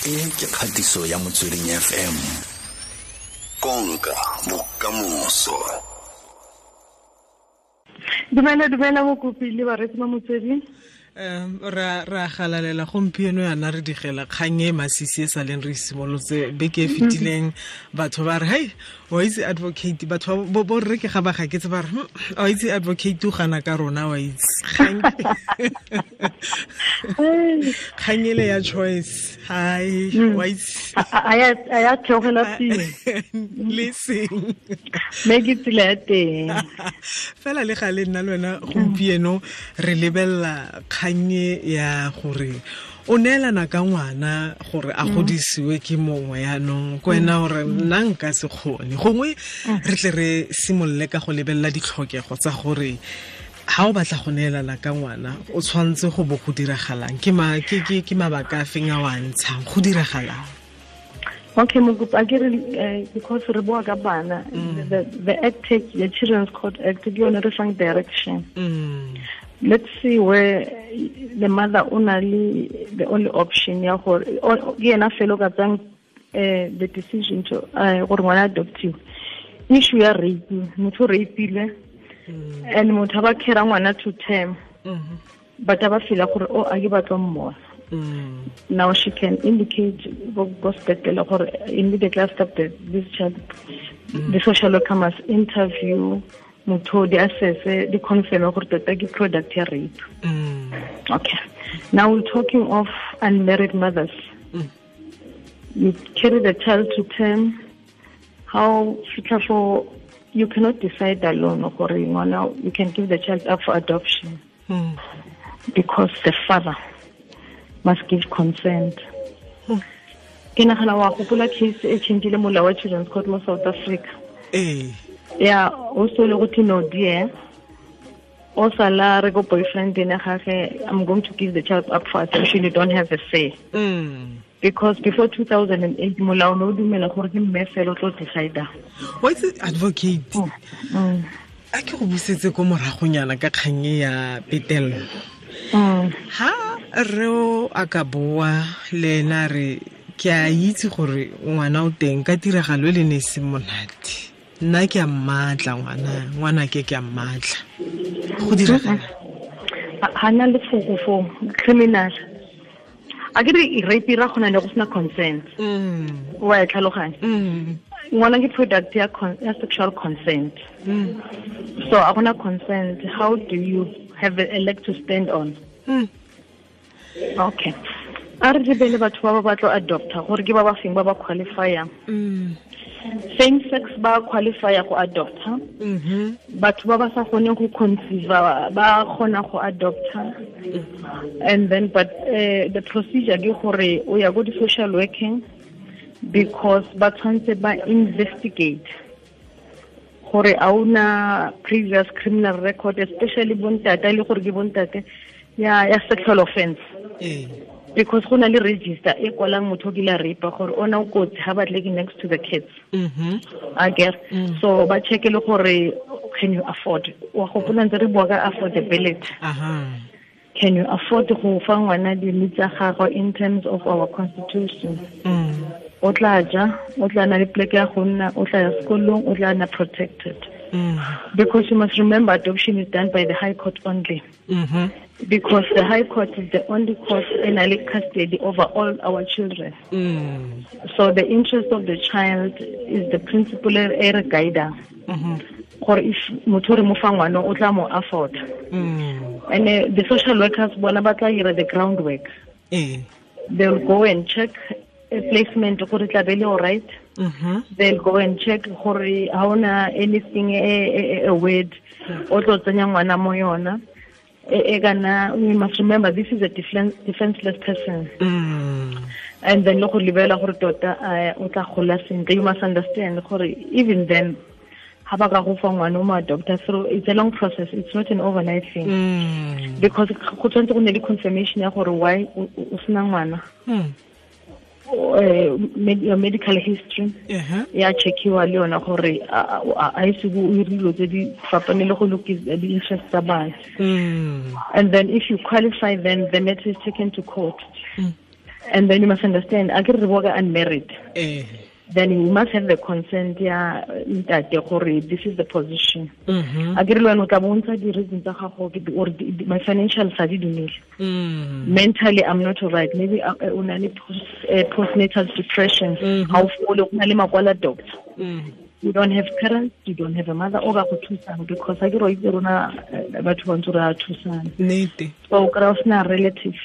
E ke kgatiso ya Motsweding FM. Konka bokamoso. Dumela dumela mokopi le bareetsi ba Motsweding. Ra galalela gompieno yana re digela kgang e masisi e sa leng re simolotse beke e fetileng. Batho ba re hei, wa itse advocate, batho bo rre ke ga ba gaketse ba re wa itse advocate o gana ka rona, wa itse kgang ele ya choice, hai wa itse a ya theogela pele le seng me ke tsela ya teng fela. Le ga le nna le wena gompieno re lebelela kgannye ya gore o neelana ka ngwana gore a godisiwe ke mongwe, yaanong ko wena gore nna nka se kgone. Gongwe re tle re simolole ka go lebelela ditlhokego tsa gore ha o batla go neelana ka ngwana o tshwanetse go bo go diragalang, ke mabaka a feng a o a ntshang, go diragalang. Okay, mokopi, a ke re because re boa ka bana, the act, the Children's Court Act, ke yone re fang direction. Let's see where the mother o na le the only option ya gore ke yena fela o ka tsang the decision to gore ngwana adoptiwe. Issue ya rape, motho o rapeile and motho ba carry ngwana to term, but ba feel gore o a ke batla mmona. Now she can indicate go sepetlele gore immediately after this child, the social worker must interview motho, di assess, di confirm gore tota ke product ya rape. Okay, now we're talking of unmarried mothers. You carry the child to term, how fitlha for you cannot decide alone gore ngwana you can give the child up for adoption, because the father must give consent. Ke nagana wa gopola case e changile molao wa Children's Court mo South Africa. Yeah, also le go no dear, o sala re go boyfriend ene gage, I'm going to give the child up for adoption, you don't have a say. Because before 2008 molao no dumela gore ke mme fela o tlo decide. Wa itse advocate, a ke go busetse ko moragonyana ka kgang ya petello. Ha re o a ka boa le ena re ke a itse gore ngwana o teng ka tiragalo e le ne e se monate, nna ke a mmatla ngwana ke a mmatla, go diragala ha na le foko fo criminal. A ke re rape ra gona le go sena consent. Wa e tlhaloganya. Ngwana ke product ya sexual consent. So a gona consent, how do you have a leg to stand on? Okay, a re lebele batho ba ba batlo adopta gore ke ba ba feng ba ba qualifyang. Same sex ba qualifya go adopta. Batho ba ba sa kgoneng go conceive ba kgona go adopta. And then but the procedure ke gore o ya go di social working, because ba tshwanetse ba investigate gore a una previous criminal record, especially bontate le gore ke bontate ya sexual offense. Because go na le register e kwalang motho o kile a rape gore ona o kotsi ha batle ke next to the kids. I guess. So ba check le gore can you afford, wa gopola ntse re bua ka affordability. Can you afford go fa ngwana di tsa gagwe in terms of our constitution? O tla ja, o tla na le pleke ya go nna, o tla ya sekolong, o tla nna protected. Because you must remember adoption is done by the High Court only. Because the High Court is the only court in custody over all our children. So the interest of the child is the principal ere guider. Gore if motho re mo fa ngwana o tla mo afford. And the social workers bona ba tla dira the groundwork. They'll go and check a placement gore tla be le all right. They'll go and check gore ha ona anything a word o tlo tsenya ngwana mo yona. We must remember this is a defenseless person. And then lo go lebela gore tota o tla gola sentle. You must understand gore even then ha ba ka go fa ngwana o mo adopta through, it's a long process, it's not an overnight thing. Because go tshwanetse go nne le confirmation ya gore why o sena ngwana. Your medical history ya checkiwa le yona gore a ise go dilo tse di fapane le go lokisa di interest tsa bana. And then if you qualify, then the matter is taken to court. And then you must understand, a ke re bua ka unmarried. Then you must have the consent ya ntate gore this is the position. A ke re le wena o tla bontsha di-reason tsa gago or my financial sa di dumele. Mentally I'm not alright. Maybe o na le postnatal depression. Ha o fole, o na le makwala doctor. You don't have parents, you don't have a mother o ka go thusang, because a ke re itse rona batho ba ntse re a thusana. Nnete. So o kry-a o sena relative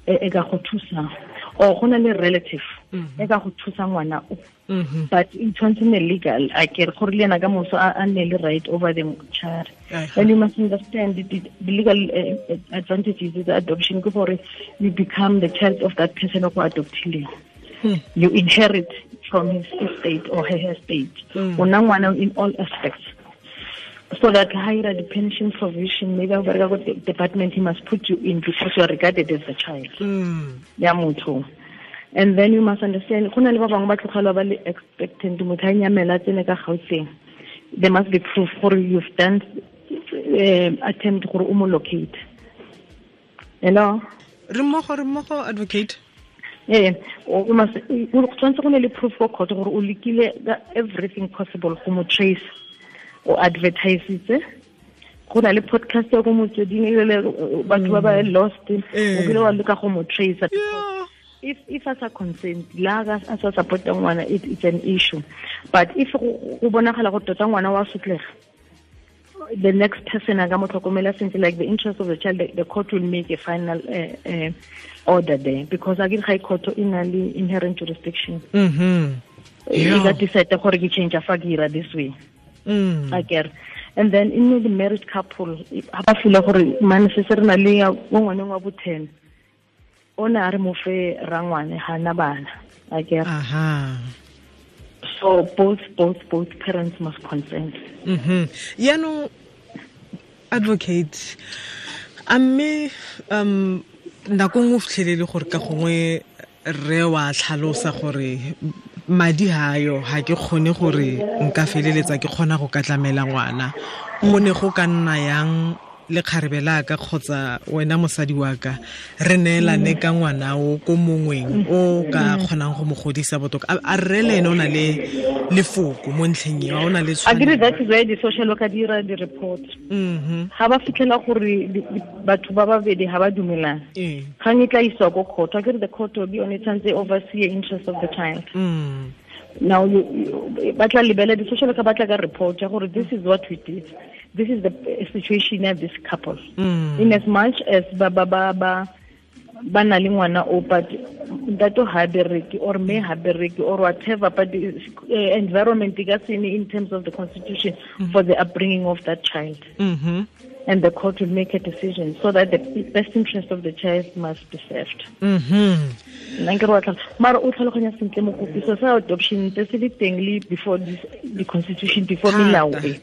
e ka go thusang, or go na le relative e ka go thusa ngwana o, but e tshwanetse nne legal, a ke re gore le ena ka moso a nne le right over the child. And you must understand the legal advantages of the adoption ke gore you become the child of that person o go adoptileng. You inherit from his estate or her estate. O nna ngwana in all aspects. So that higher the pension provision, maybe the department, he must put you in because you are regarded as a child. Ya motho. And then you must understand, go na le ba bangwe ba tlogela ba le expectant, motho a nyamela tsene ka Gauteng. There must be proof gore you've done attempt gore o mo locate. Hello? Re mmogo advocate. Yeah, o tshwanetse go ne le proof for court gore o lekile everything possible go mo trace. O advertise go na le podcast ya go motsweding le batho ba ba lost, o kile wa leka go mo trace. If as a consent la ga a sa support ngwana, it's an issue. But if go bonagala go tota ngwana wa sotlega, the next person a ka mo tlhokomela sentle, like the interest of the child, the court will make a final order there, because again high court e na le inherent jurisdiction. E ka decide gore ke change fa ke ira this way. I get. And then in the married couple, ha ba feel gore man se se re na le mo ngwaneng wa bo 10, o ne a re mo fe rangwane ha na bana. I get. So both parents must consent. Yaanong advocate, a mme nako nngwe o fitlhelele gore ka gongwe rre wa tlhalosa gore madi hayo ha ke kgone gore nka feleletsa ke kgona go ka tlamela ngwana, go ne go ka nna yang le kgarebe la ka kgotsa wena mosadi wa ka re neelane ka ngwana o ko mongweng o ka kgonang go mo godisa botoka? A rre le ene o na le lefoko mo ntlheng eo, o na le tshwanelo? Agree, that is why the social worker dira di report. Ha ba fitlhela gore batho ba babedi ha ba dumelana, kgang e tla iswa ko court. Akere the court will be on its own, oversee interest of the child. Now you batla lebela di social worker batla ka report ya gore this is what we did, this is the situation of this couple. In as much as ba ba ba ba ba na le ngwana o, but ntate ha bereke or me ha bereke or whatever, but the environment ka sene in terms of the constitution for the upbringing of that child. And the court will make a decision so that the best interest of the child must be served. Nna ke re wa mara o tlhaloganya sentle mokopi, so sa adoption tse se le teng le before this, the constitution, before melao e.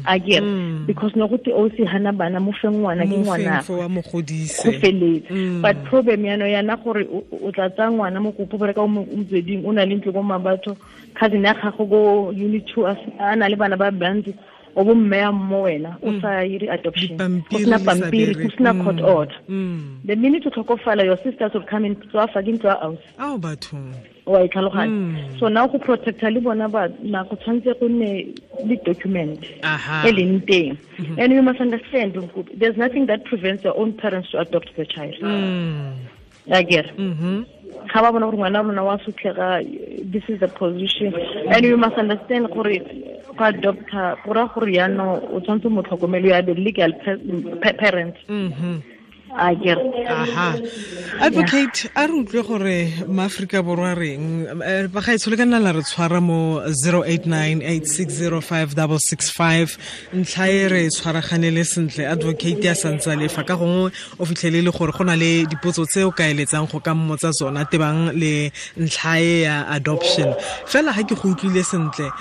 Again, because no go te o se hana bana mo fe ngwana ke ngwana wa mo godise go feletse. But problem yana yana gore o tla tsaya ngwana mokopi gore ka o motsweding o na le ntlo ko mabatho, cousin ya gago go unit 2 a na le bana ba bantsi, o bo mme ya mo wena o sa ire adoption, o sena pampiri, o sena court order. The minute o tlhokofala, your sisters will come in tswa fa ke ntlo ya house. Ao batho wa e tlhaloganya. So now go protecta le bona ba na go tshwanetse go nne le document e leng teng. And you must understand, there's nothing that prevents your own parents to adopt the child. I get. Ga ba bona gore ngwana rona wa sotlega, this is the position. And you must understand gore go adopta go ra gore yaanong o tshwanetse mo tlhokomelo ya the legal parent. I get. Advocate, a re utlwe gore maAforika Borwa reng bagaetsho le ka nna la re tshwara mo 0898605665 ntlha e re tshwaraganele sentle. Advocate ya santse le fa ka gongwe o fitlhele le gore go na le dipotso tse o ka eletsang go ka mmotsa tsona tebang le ntlha e ya adoption. Fela ha ke go utlwile sentle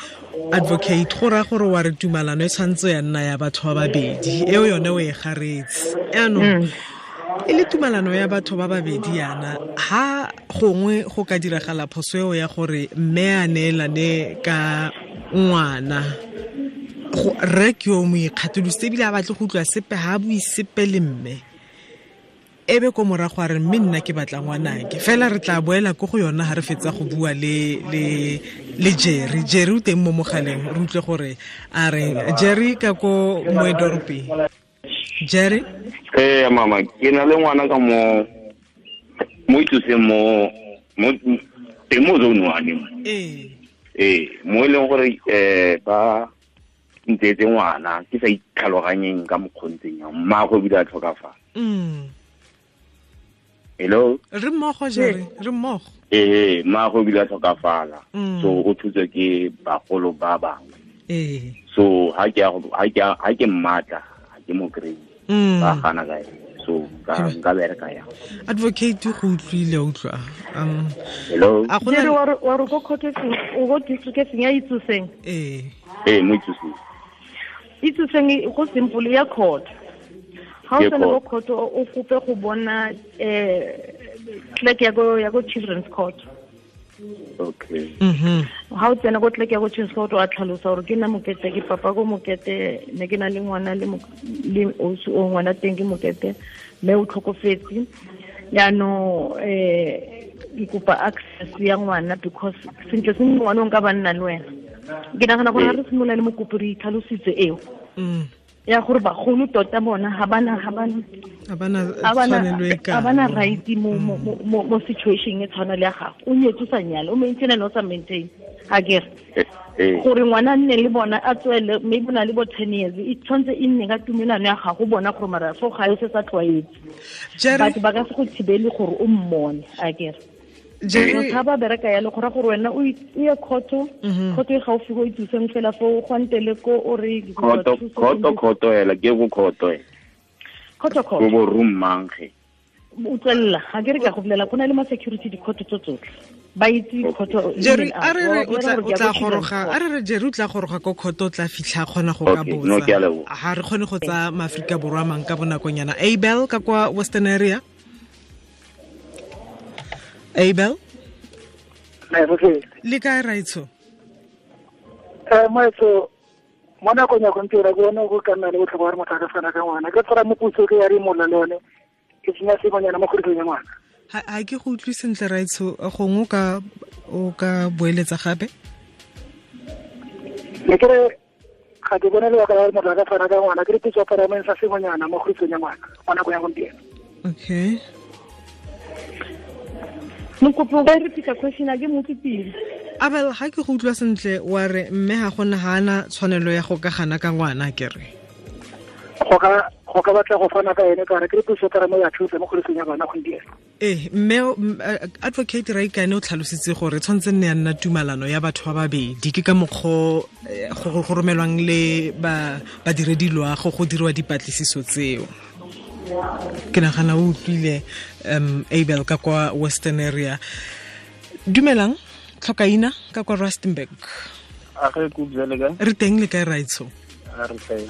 advocate, go raya gore wa re tumalano e tshwanetse ya nna ya batho ba babedi, eo yone o e garetse. Yaanong e le tumalano ya batho ba babedi yana, ha gongwe go ka diragala phoso eo ya gore mme a neelane ka ngwana, rre ke yo mo ikgatholositse ebile a batle go utlwa sepe, ha a bue sepe le mme, Ebe ko morago a re mme nna ke batla ngwanake fela re tla boela ko go yona ha re fetsa go bua le le le Jerry. Jerry o teng mo mogaleng, re utlwe gore a re Jerry ka ko Moedorpi. Jerry? Mama, ke na le ngwana ka mo itsoseng mo teng mo zone one. Mo e leng gore ba ntetse ngwana ke sa itlhaloganyeng ka mokgontseng yang mmaagwe ebile a tlhokafala. Hello? Re mmogo Jerry, re mmogo. Mmaagwe ebile a tlhokafala. So o thutswe ke bagolo ba bangwe. So ha ke mmatla, ha ke mo kry. Ba gana ka ene. So nka bereka yang. Advocate go utlwile utlwa. Hello? Jerry wa re ko court o go district e ya Itsoseng. Mo Itsoseng. Itsoseng go simple ya court. Ha o tsena go court o kope go bona clerk ya go children's court. Okay. Ha o tsena go clerk ya go children's court wa tlhalosa gore ke nna Mokete, ke papa go Mokete, ne ke na le ngwana le o ngwana teng ke Mokete, mme o tlhokofetse. Jaanong ke kopa access ya ngwana because sentle sentle ngwana o nka ba nna le wena. Ke nagana gore ha re simolola le mokopi re itlhalositse eo. Ya gore bagolo tota bona ha bana right mo situation e tshwana le ya gago. O nyetse o sa nyale, o maintain le o sa maintain. Ha ke re gore ngwana nne le bona a tswele maybe na le bo 10 years, e tshwantse e nne ka tumelano ya gago bona gore mara fo ga e se sa tlwaetse. Batho ba ka se go thibele gore o mmone, a ke re. Jerry ga ba bereka ya le gore gore wena o ye khotho e gaufi go itseng fela fo go ntele ko o re khotho hela ke go khotho khotho go bo room mangge o tswella ga ke re ka go bolela go na le ma security di khotho tso tsotlhe ba itse khotho. Jerry a re re o tla goroga, a re re Jerry o tla goroga ko khotho o tla fitlha kgona go ka botsa. Ha re kgone go tsa Maafrika Borwa mang ka bonakonyana. Abel ka kwa Western Area. Abel? Le kae raitsho? Moetso, mo nakong ya gompieno ke bone go ka nna le botlhokwa gore motho a ka fana ka ngwana. Ke tshwara moputso ke ya re molla le yone, ke tsenya sengwenyana mo kgodisong ya ngwana. Ha ke go utlwe sentle raitsho, gongwe o ka boeletsa gape? Ne ke re ga ke bone lebaka la gore motho a ka fana ka ngwana, ke re puso ya parliament sa sengwenyana mo kgodisong ya ngwana mo nakong ya gompieno. Okay. Mokopi o ka repeat question a ke mo utlwe. Abel, ha ke go utlwa sentle wa re mme ga gona ha ana tshwanelo ya go ka gana ka ngwana ke re. Go ka batla go fana ka ene ka re ke puso ka mo ya thusa mo kgodisong ya bana gompieno. Mme advocate Raikane o tlhalositse gore tshwanetse nne ya nna tumalano ya batho ba babedi, ke ka mokgo go romelwang le ba badiredi loago go dirwa dipatlisiso tseo. Ke nagana o utlwile Abel ka kwa Western Area. Dumelang, tlhokaina ka kwa Rustenburg. A re kubjale kae? Re teng le kae raitsho? A re teng.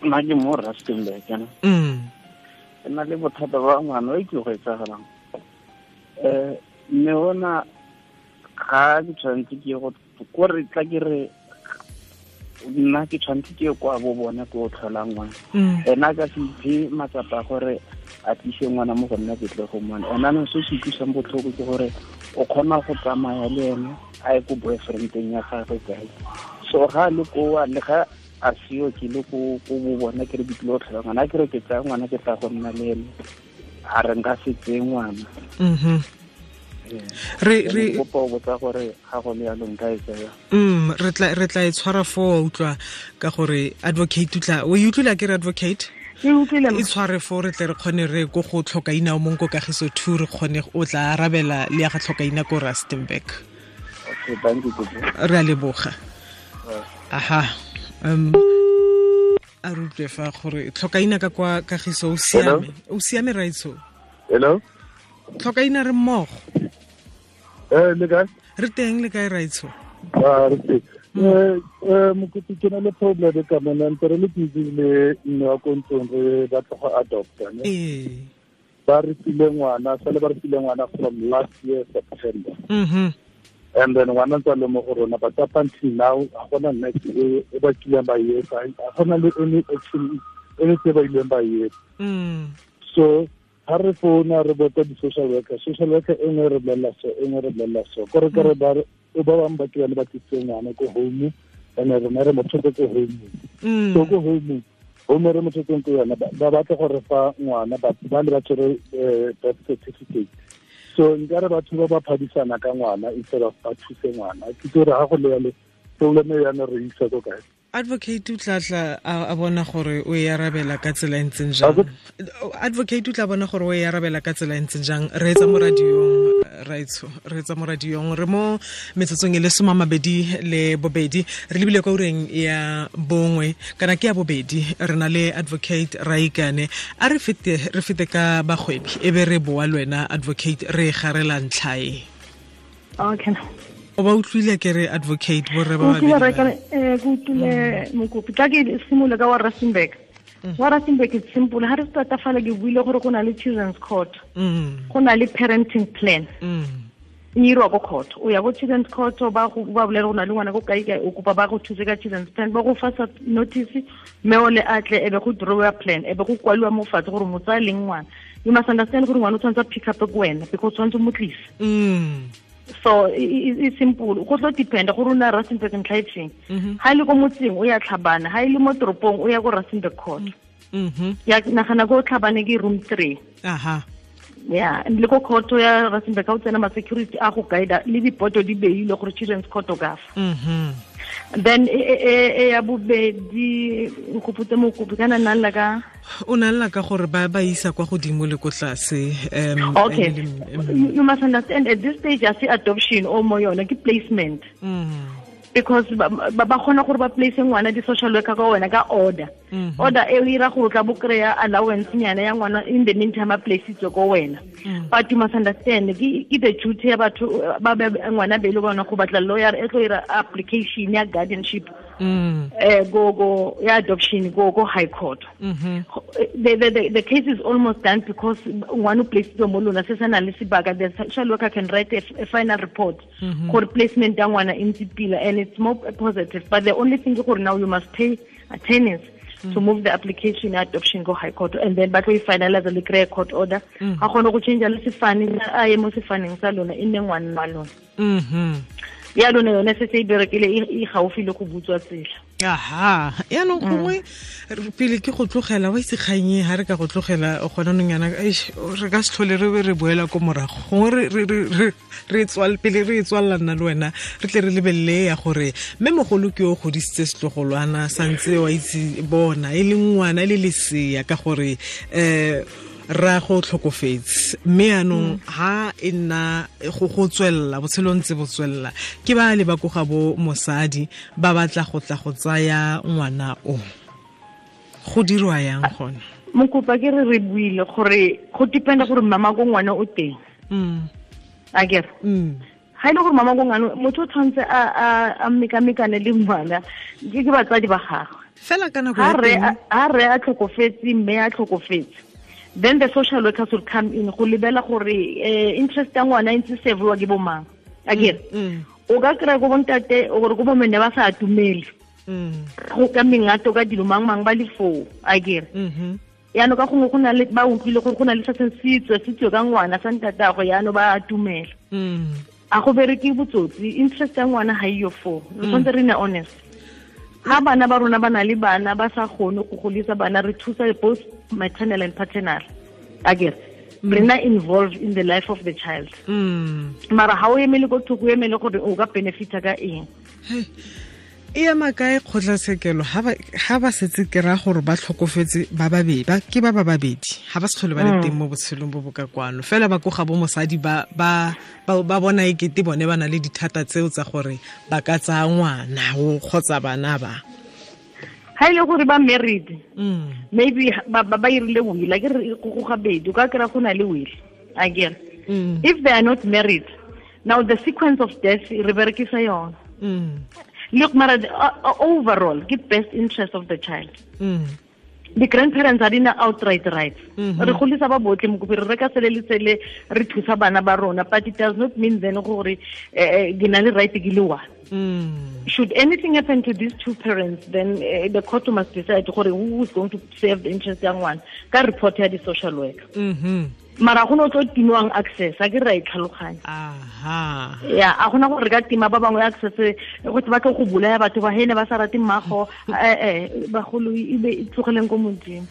Nna ke mo Rustenburg kana. Ke na le bothata ba ngwana o ke go etsagalang. Mme ona ga ke tshwanetse ke go ko re tla ke re nna ke tshwanetse ke kwa bo bona ke o tlhola ngwana. Ena ka se iphe matsapa gore a tlise ngwana mo go nna ke tle go mmona. Ena no se se utlwisang botlhoko ke gore o kgona go tsamaya le ene a ye ko boyfriendeng ya gagwe kae. So ga le koa le ga a seo ke le ko bo bona ke re ke tlile go tlhola ngwana, ke re ke tsaya ngwana ke tla go nna le ene, a re nka se tseye ngwana. Re kopa o botsa gore ga go le yalo nka e tsaya. Re tla e tshwara foo utlwa ka gore advocate utla o e utlwile ke re advocate e utlwile e tshware foo re tle re kgone re go go tlhokaina o mong ko Kagiso 2 re kgone o tla arabela le ya ga tlhokaina ko Rustenburg. Okay, thank you. Re a leboga. Aha. A re utlwe fa gore tlhokaina ka kwa Kagiso o siame. O siame raitsho? Hello? Tlhokaina re mmogo. Le kae? Re teng le kae raitsho? Re teng. Mokopi ke na le problem ka mona, ntse re le busy le mme wa ko ntlong re batla go adopta ne. Ba re file ngwana, sale ba re file ngwana from last year September. And then ngwana ntse a le mo go rona, but up until now ga gona next e ba kileng ba e etsa, ga gona le any action e le tse ba ileng ba etsa. So ha re founa re botsa di-social worker, social worker e nngwe re bolelela so, e nngwe re bolelela so. Kore kore ba bangwe ba ke bane ba tlisitse ngwana ko home, and rona re mo tshotse ko home. So ko home re mo tshotseng ko yona, ba batla gore fa ngwana ba le ba tshwere birth certificate. So nkare batho ba ba phadisana ka ngwana instead of ba thuse ngwana. Ke gore ha go le yalo problem ya ne re isa ko kae. Advocate o tla a bona gore o e arabela ka tsela e ntseng jang. Advocate o tla bona gore o e arabela ka tsela e ntseng jang. Re etsa mo radiong, raitsho, re etsa mo radiong. Re mo metsotsong e le 22 re lebile kwa ureng ya 1 kana ke ya 2. Re na le Advocate Raikane. A re fete ka bagwebi e be re boa le wena Advocate re garela ntlha e. Okay. O ba utlwile ke re Advocate borre ba babedi. Ke utlwile mokopi. Tla ke simolola ka wa Rustenburg. Wa Rustenburg it's simple. Ha re start fala ke buile gore go na le children's court. Go na le parenting plan. E irwa ko court. O ya go children's court ba go ba bolela go na le ngwana go kae kae, o kopa ba go thuse ka children's plan, ba go fa notice mme o le atle e be go draw plan, e be go kwaliwa mo fatshe gore motsa leng ngwana. You must understand gore ngwana o tshwanetse pick up ko wena because tshwanetse mo tlise. So it's simple. Go tlo depend gore o na Rustenburg ntlha e feng. Ha ile ko motseng o ya Tlhabane, ha ile mo toropong o ya ko Rustenburg court. Ya nagana go Tlhabane ke room 3. Aha. Yeah, le ko court ya Rustenburg ka o tsena ma security a go guide le dipoto di beile gore children's court o ka fa. Then e ya bobedi go mokopi kana nna la ka o na lla ka gore ba isa kwa godimo le ko tlase. Okay. You must understand at this stage I see adoption o mo yona ke placement. Because ba kgona gore ba place ngwana di social worker ka wena ka order. Order e ira gore tla bo kry-a allowance nyana ya ngwana in the meantime a placeitswe ko wena. But you must understand ke the duty ya batho ba ngwana be le bona go batla lawyer e tlo ira application ya guardianship go ya adoption go high court. The case is almost done because ngwana o placeitswe mo lona se sana le sebaka. The social worker can write a final report gore placement ya ngwana e ntse pila, and it's more positive. But the only thing gore now you must pay attorneys to move the application adoption go high court, and then ba tlo e finalize le kry court order. Ga kgone go change le sefane a ye mo sefaneng sa lona e nne ngwana wa lona. Ya lona yone se se e berekile e gaufi le go butswa tsela. Aha, yaanong gongwe pele ke go tlogela wa itse kgang e ha re ka go tlogela gona nong yana re ka se tlhole re be re boela ko morago. Gongwe re pele re tswalela nna le wena re tle re lebelele ya gore mme mogolo ke o godisitse setlogolwana santse wa itse bona e le ngwana e le lesea ka gore ra go tlhokofetse, mme yaanong ha e nna go tswelela botshelo ntse bo tswelela ke ba le ba ko ga bo mosadi ba batla go tla go tsaya ngwana o, go dirwa yang gona? Mokopa ke re buile gore go dependa gore mama ko ngwana o teng. A kere ha ile gore mama ko ngwana motho o tshwanetse a mekamekane le ngwana ke batsadi ba gagwe fela ka nako ya teng ha re a tlhokofetse mme a tlhokofetse, then the social workers will come in go lebela gore interest ya ngwana e ntse serviwa ke bomang. Akere o ka kry-a ko bontate gore ko bomme ba sa atumele go ka mengato ka dilo mang mang ba le foo. Akere yaanong ka gongwe go na le ba utlwile gore go na le se setswe ka ngwana sa ntatagwe, yaanong ba atumela. A go bereke botsotsi, interest ya ngwana ga iyo foo. Re tshwanetse re nne honest. Ha bana ba rona ba na le bana ba sa kgone go godisa bana, re thusa both maternal and paternal. Akere re na involved in the life of the child. Mara ha o emele ko thoko, o emele gore o ka benefita ka eng. E ema kae kgotlatshekelo ha ba setse ke ra gore ba tlhokofetse ba babedi, ba ke ba babedi ha ba se tlhole ba le teng mo botshelong bo bo ka kwano, fela ba ko ga bo mosadi ba bona e kete bone ba na le dithata tseo tsa gore ba ka tsaya ngwana o kgotsa bana ba. Ha ile gore ba married, maybe ba irile will, a ke re go gabedi o ka kry-a go na le will. Akere if they are not married, now the sequence of death re berekisa yona. Look, mara overall ke best interest of the child. The grandparents are in outright rights. Re golisa ba botlhe mokopi re reka sele le sele re thusa bana ba rona, but it does not mean then gore ke na le right ke le one. Should anything happen to these two parents, then the court must decide gore who is going to serve the interest ya ngwana ka report ya di social worker. Mara go no tlo timiwang access, a ke ra e tlhaloganya. Aha. Ya, a gona gore re ka tima ba bangwe access go ba tlo go bolaya batho ba hene ba sa rate mmago, bagolo e be e tlogeleng ko Modimo.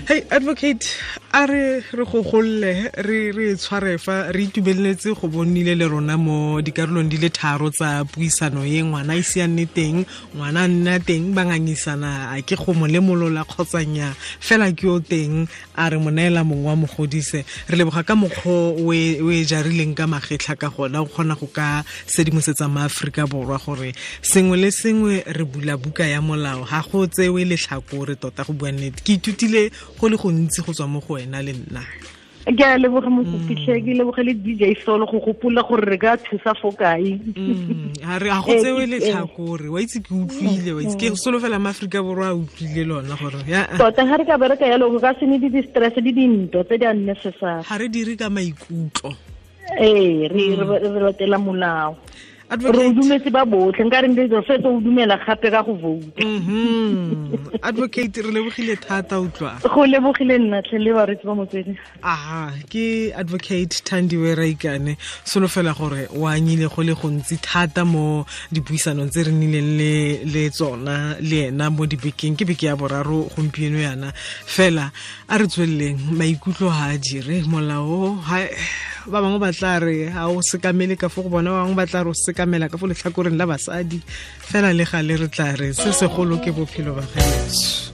Hey advocate, a re go golle re tshware fa re itumeletse go bonile le rona mo dikarolong di le tharo tsa puisano ye ngwana ise a nne teng, ngwana a nna teng, ba ngangisana a ke go mo lemolola kgotsanya fela ke o teng a re mo neela mongwe wa mogodise. Re leboga ka mokgwa o e jarileng ka magetlha ka gona o kgona go ka sedimosetsa maAforika Borwa gore sengwe le sengwe re bula buka ya molao, ga go tsewe letlhakore tota go bua nnete. Ke ithutile go le gontsi go tswa mo go wena le nna. Ke a leboga mokopitlhe, ke leboge le DJ Solo go gopola gore re ka thusa fo kae. Ga re a go tsewe letlhakore, wa itse ke utlwile, wa itse ke solofela maAforika Borwa a utlwile lona gore tota ga re ka bereka yalo go ka se ne di-stress le dintwa tse di unnecessary. Ga re dire ka maikutlo. Ee, re latela molao. Re dumetse ba botlhe, nka re re fetsa o dumela gape ka go vote. Advocate, re lebogile thata utlwa. Go lebogile nna tlhe le baretsi ba Motsweding. Aha, ke advocate Thandiwe Raikane. Solofela gore o anyile go le gontsi thata mo dipuisanong tse re nnileng le tsona le ena mo dibekeng, ke beke ya boraro gompieno yana. Fela a re tsweleleng, maikutlo ha a dire molao, ba bangwe ba tla re ha o sekamele ka fo go bona, ba bangwe ba tla re o sekamela ka fo letlhakoreng la basadi, fela le gale re tla re se segolo ke bophelo ba gaetsho.